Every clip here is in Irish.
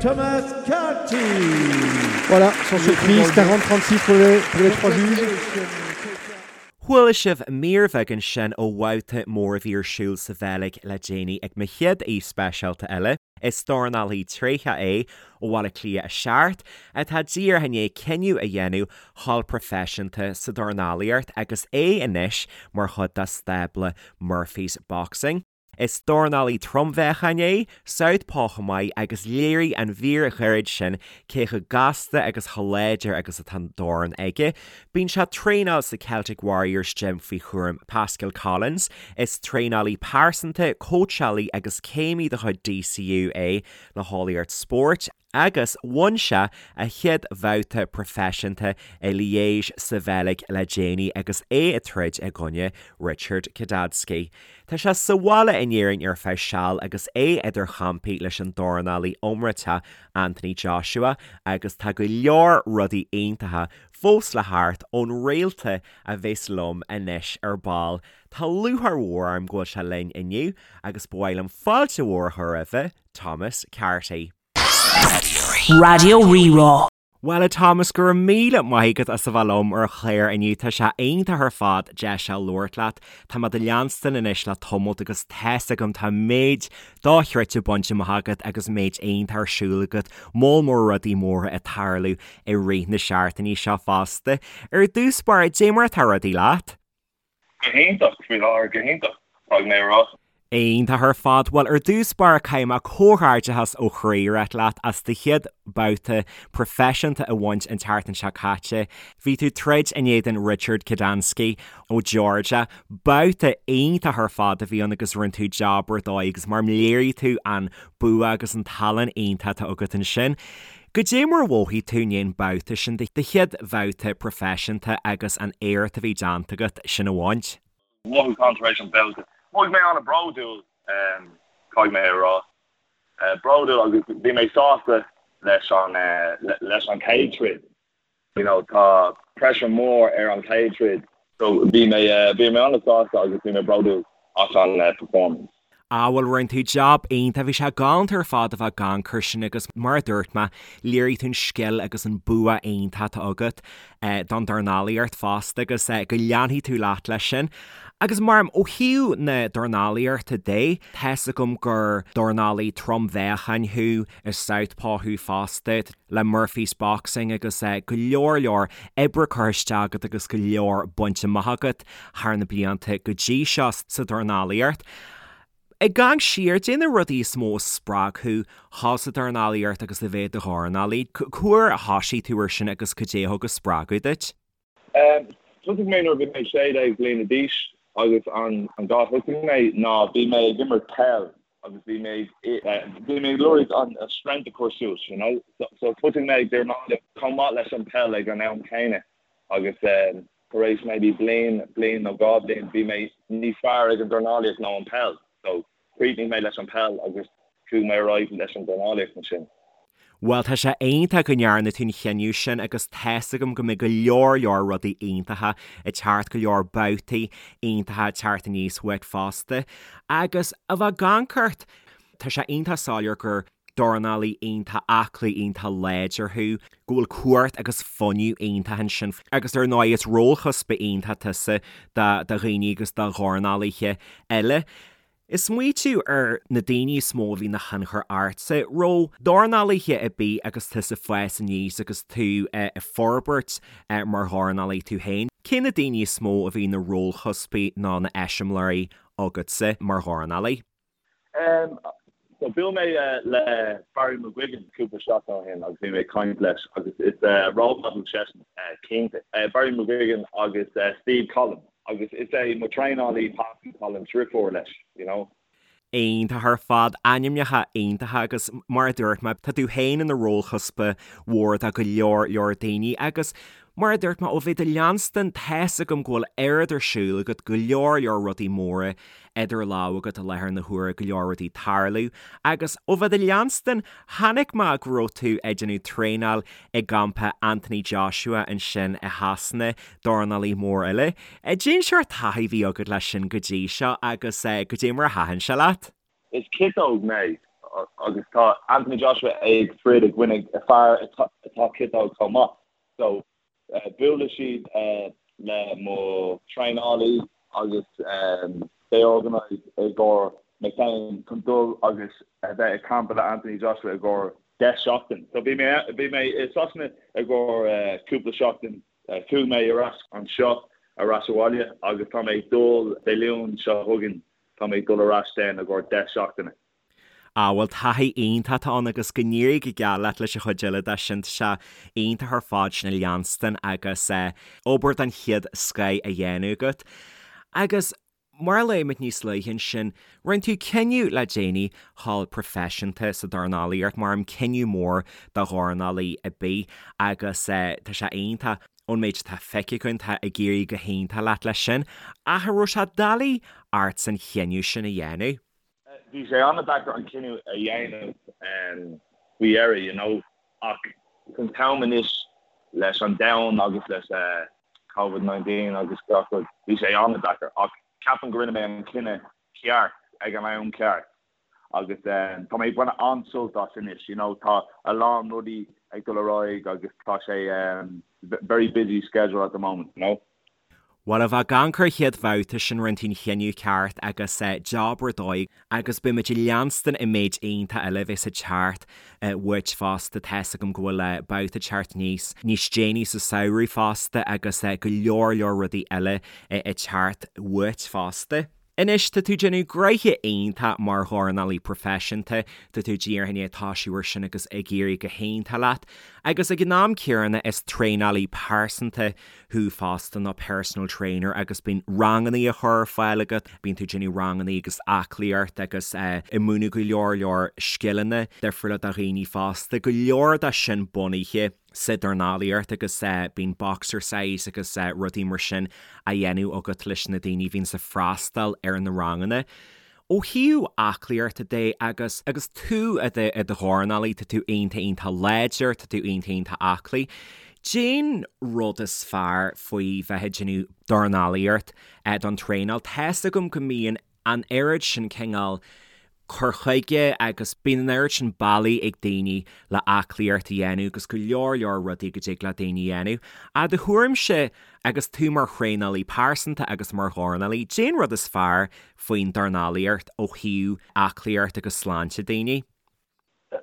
Thomas Carty. Voilà, sans surprise, 40-36 pour les, pour les trois juges. Chuala sibh mír bheag ansin ó bhabhta mór a bhí ar siúl sa Bheilg le déanaí ag mo chéad aoi speisialta eile. Is dornálaí tréitheach é ó Bhaile Átha Cliath 7, atá díreach i ndiaidh cinneadh a dhéanamh dhul proifisiúnta sa dornálaíocht agus é anois mar chuid de stábla Murphy's Boxing. Is dornálaí trom-mheáchain é, southpaw chomh maith agus léirigh an mhír ghairid sin cé chomh gasta agus chomh láidir agus atá an dorn aige. Bíonn sé ag traenáil sa Celtic Warriors Gym faoi chúram Pascal Collins. Is traenálaí pearsanta, cóitseálaí agus céimí de chuid DCU é le heolaíocht spóirt. agus bhain sé a chéad bhabhta proifisiúnta i Liège sa Bheilg le déanaí agus é ag troid i gcoinne Richard Kidadski. Tá sé sa bhaile in Éirinn ar feadh seal agus é idir champaí leis an dornálaí iomráiteach Anthony Joshua agus tá go leor rudaí iontacha fós le theacht ón réalta a bheas liom anois ar ball. Tá lúcháir mhór orm go bhfuil sé linn inniu agus ba mhaith liom fáilte mhór a chur roimhe, Thomas Carty. Raidió Rí-Rá. Bhuel a Thomas, go raibh míle maith agat as a bheith liom ar an chlár inniu. Tá sé iontach ar fad deis a labhairt leat. Tá mé do leanstan anois le tamalt agus tá's agam tá méid dochreidte bainte amach agat agus méid iontach ar siúl agat, moll mór rudaí móra ag tarlú i rith na seachtainí seo fosta. Ar dtús báire, dé mar atá rudaí leat? Go hiontach, faoi láthair, go hiontach, caithfidh mé a rá. Iontach ar fad. Bhuel, ar dtús báire, caithfidh mé comhghairdeachas ó chroí a ráit leat as do chéad babhta proifisiúnta a bhaint an tseachtain seo caite. Bhí tú ag troid in éadan Richard Kadansky ó Georgia. Babhta iontach ar fad a bhí ann agus rinne tú jab ar dóigh agus mar léirigh tú an bua agus an tallann iontach atá agat ansin. Goidé mar a mhothaigh tú i ndiaidh an babhta sin, do chéad bhabhta proifisiúnta agus an éacht a bhí déanta agat sin a bhaint? Mothúchán tar éis an babhta. Mhothaigh mé an-bhródúil, caithfidh mé a rá. Bródúil agus bhí mé sásta leis an leis an chéad troid. You know, tá pressure mór ar an chéad troid. So bhí mé bhí mé an-sásta agus bhí mé bródúil as an performance. Ah bhuel rinne tú jab iontach, bhí sé galánta ar fad a bheith ag amharc air sin agus mar a dúirt mé, léirigh tú an scil agus an bua iontach atá agat don dornálaíocht fosta agus go leanfaidh tú leat leis sin. Agus mar ó thaobh na dornálaíochta de, tá's agam gur dornálaí trom-mheáchain thú, is southpaw thú fosta le Murphy's Boxing agus go leor leor oibre curtha isteach agat agus go leor bainte amach agat thar na blianta go dtí seo sa dornálaíocht. Ag amharc siar, dé na rudaí is mó a spreag thú dhul sa dornálaíocht agus a bheith i do dhornálaí. Cá huair a thosaigh tú ar sin agus cad é a thug an spreagadh duit? Thosaigh mé nuair a bhí mé 16 bliana d'aois agus an dá thosaigh mé ná bhí mé ag imirt peil agus bhí mé bhí mé ag lorg an strength a chur suas you know so thosaigh mé ag dornálaíocht chomh maith leis an peil ag an am céanna agus tar éis maybe bliain, bliain nó dhá bhliain bhí mé níos fearr ag an dornálaíocht ná an peil so chríochnaigh mé leis an peil agus chuaigh mé ar aghaidh leis an dornálaíocht ansin. Bhuel, tá sé iontach go ndearna tú an chinneadh sin agus tá's agam go mbeidh go leor leor rudaí iontacha ag teacht, go leor babhtaí iontacha ag teacht aníos uait fosta. Agus a bheith ag amharc ort, tá sé iontach soiléir gur dornálaí iontach aclaí, iontach láidir thú, go bhfuil cumhacht agus fuinneamh iontach ansin agus ar ndóigh is rólchuspa iontach tusa do dhaoine agus do dhornálaithe eile. Ag smaoitiú ar na daoine is mó a bhí ina thionchar ortsa, raibh dornálaithe ar bith agus tusa ag fás aníos agus tú ag forbairt mar dhornálaí tú féin, cé na daoine is mó a bhí ina rólchuspaí nó ina eiseamláirí agatsa mar dhornálaí? So bhuail mé le Barry McGuigan cúpla seachtain ó shin agus bhí mé ag caint leis agus is role model seisean cinnte. Barry McGuigan agus Steve Collins. Agus is é mo traenálaí Pascal Collins deirfiúr leis, you know. Iontach ar fad, ainmneacha iontacha agus mar a dúirt mé, tá tú féin ina rólchuspa mhór do go leor leor daoine agus mar a dúirt mé, ó bheith do leanstan, tá's agam go bhfuil oiread ar siúl agat, go leor leor rudaí móra idir lámha agat i láthair na huaire, go leor rudaí ag tarlú agus ó bheith do leanstan, chonaic mé go raibh tú ag déanamh traenáil i gcampa Anthony Joshua ansin i Shasana, dornálaí mór eile. Cén sórt taithí a bhí agat leis sin go dtí seo agus goidé mar a thaitin sé leat? Is ciotóg mé. Agus tá Anthony Joshua ag troid i gcoinne fear atá ciotóg chomh maith. So buailfidh siad le mo traenálaí agus they organised i gcomhair mé féin chun dul agus a bheith ag campa le Anthony Joshua i gcomhair 10 seachtain. So bhí mé bhí mé i Sasana i gcomhair cúpla seachtain, chuaigh mé ar ais anseo ar ais abhaile agus tá mé ag dul Dé Luain seo chugainn tá mé ag dul ar ais then i gcomhair 10 seachtaine. Ah bhuel taithí iontach atá ann agus go n-éirí go geal leat leis an chuid eile de sin, tá sé iontach ar fad sin a leanstan agus obair den chéad scoith á dhéanamh agat. Agus mar a luaigh muid níos luaithe ansin, rinne tú cinneadh le déanaí dhul proifisiúnta sa dornálaíocht, mar an cinneadh mór do dhornálaí ar bith agus tá sé iontach ón méid atá feicthe againn, tá ag éirí go hiontach leat leis sin. Ach an raibh sé doiligh ort an chinneadh sin a dhéanamh? Bhí sé an-deacair an cinneadh a dhéanamh faoi dheireadh, you know, ach san t-am anois leis an domhan agus leis Covid 19 agus gach rud, bhí sé an-deacair ach ceapaim go rinne mé an cinneadh ceart ag an am ceart agus tá mé ag baint an-sult as anois, you know, tá a lán rudaí ag dul ar aghaidh agus tá sé very busy schedule at the moment, you know. Bhuel, a bheith ag amharc ar an chéad bhabhta sin rinne tú an chinneadh ceart agus jab ar dóigh agus beidh muid ag leanstan an méid iontach eile a bheas ag teacht uait fosta. Tá's agam go bhfuil babhta ag teacht níos níos déanaí sa samhradh fosta agus go leor leor rudaí eile ag teacht uait fosta. Anois, tá tú ag déanamh gnoithe iontach mar dhornálaí proifisiúnta, tá tú díreach i ndiaidh toisiú ar sin agus ag éirí go hiontach leat. Agus ag an am céanna is traenálaí pearsanta thú fosta, nó personal trainer, agus bíonn rangannaí á chur ar fáil agat, bíonn tú ag déanamh rangannaí agus aclaíocht agus ag múineadh go leor leor scileanna difriúla do dhaoine fosta, go leor de sin bunaithe. sa dornálaíocht agus bíonn boxercise agus rudaí mar sin á dhéanamh agat leis na daoine a bhíonns ag freastal ar na ranganna. Ó thaobh aclaíochta de agus agus tú i do i do dhornálaí, tá tú iontach iontach láidir, tá tú iontach iontach aclaí. Cén rud is fearr faoi bheith ag déanamh dornálaíocht don traenáil? Tá's agam go mbíonn an oiread sin cineál cur chuige agus bíonn an oiread sin bealaí ag daoine le aclaíocht a dhéanamh agus go leor leor rudaí go dtig le daoine a dhéanamh. I do thuairimse, agus tú mar thraenálaí pearsanta agus mar dhornálaí, cén rud is fearr faoin dornálaíocht ó thaobh aclaíocht agus sláinte daoine?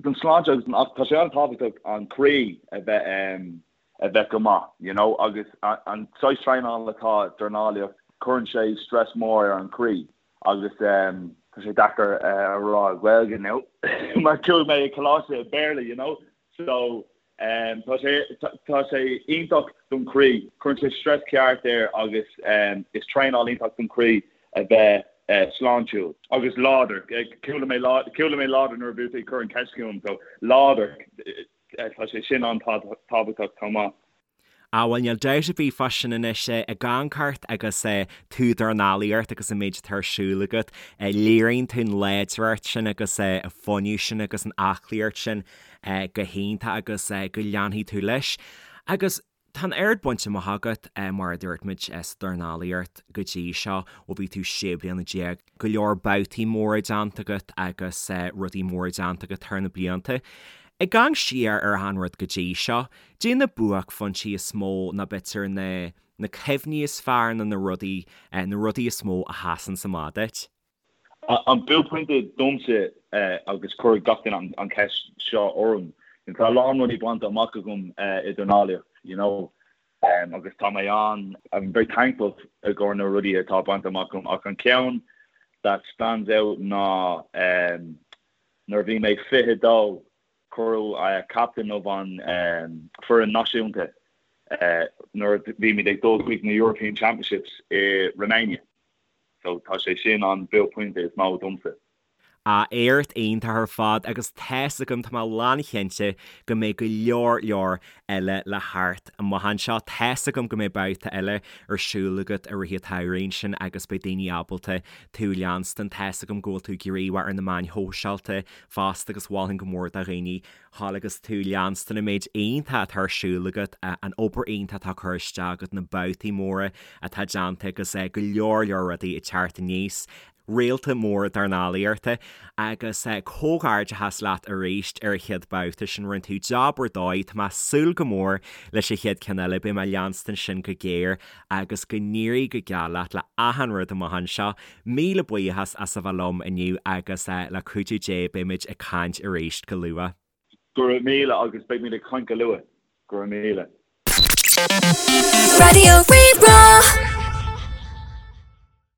Don sláinte agus don tá sé an-tábhachtach an croí a bheith a bheith go maith, you know, agus an saghas traenála atá dornálaíocht, cuireann sé stress mór ar an croí agus tá sé deacair a rá i Gaeilge now mar chuaigh mé i coláiste i Béarla, you know, so Tá sé tá sé iontach don chroí. Cuireann sé stress ceart air agus is traenáil iontach don chroí a bheith sláintiúil. Agus láidir. Chuala mé chuala mé láidir nuair a bhí tú ag cur an ceist chugam so láidir tá sé sin an-tábhachtach chomh maith. Á bhuel níl dabht ar bith fá sin anois ag amharc ort agus tú ag dornálaíocht agus an méid atá ar siúl agat. Léiríonn tú an láidreacht sin agus an fuinneamh sin agus an aclaíocht sin go hiontach agus go leanfaidh tú leis. Agus tá an oiread bainte amach agat mar a dúirt muid sa dornálaíocht go dtí seo ó bhí tú 16 bliana. Go leor babhtaí móra déanta agat agus rudaí móra déanta agat thar na blianta. Ag amharc siar ar achan rud go dtí seo, Cad é na buaicphointí is mó nó b'fhéidir na na cuimhní is fearr nó na rudaí na rudaí is mó a sheasann amach duit? An buaicphointe domsa agus cuireann gach duine an cheist seo orm, tá a lán rudaí bainte amach agam i dornálaíocht, you know, agus tá mé an, I'm very thankful i gcomhair na rudaí atá bainte amach agam ach an ceann that stands out ná nuair a bhí mé 22 Cuireadh captain of an foireann náisiúnta nuair a bhí muid ag dul chuig na European Championships i Romania. So tá sé sin an buaicphointe is mó domsa. Ah, éacht iontach ar fad agus tá's agam, tá mé lánchinnte go mbeidh go leor leor eile le theacht amach anseo. Tá's agam go mbeidh babhta eile ar siúl agat i rith an tsamhraidh ansin agus beidh daoine ábalta tú a leanstan. Tá's agam go bhfuil tú gníomhach ar na meáin shóisialta fosta agus mholfainn go mór do dhaoine dhul agus tú leanstan an méid iontach atá ar siúl agat, an obair iontach atá curtha isteach agat, na babhtaí móra atá déanta agus go leor leor rudaí ag teacht aníos. Réalta mór dornálaíochta agus comhghairdeachas leat arís ar an chéad babhta sin, rinne tú jab ar dóigh, tá mé ag súil go mór leis an chéad ceann eile, beidh mé ag leanstan sin go géar agus go n-éirí go geal leat le achan rud amach anseo. Míle buíochas as a bheith liom inniu agus le cuidiú Dé beimid ag caint arís go luath. Go raibh míle agus beimid ag caint go luath. Go raibh míle. Raidió Rí-Rá.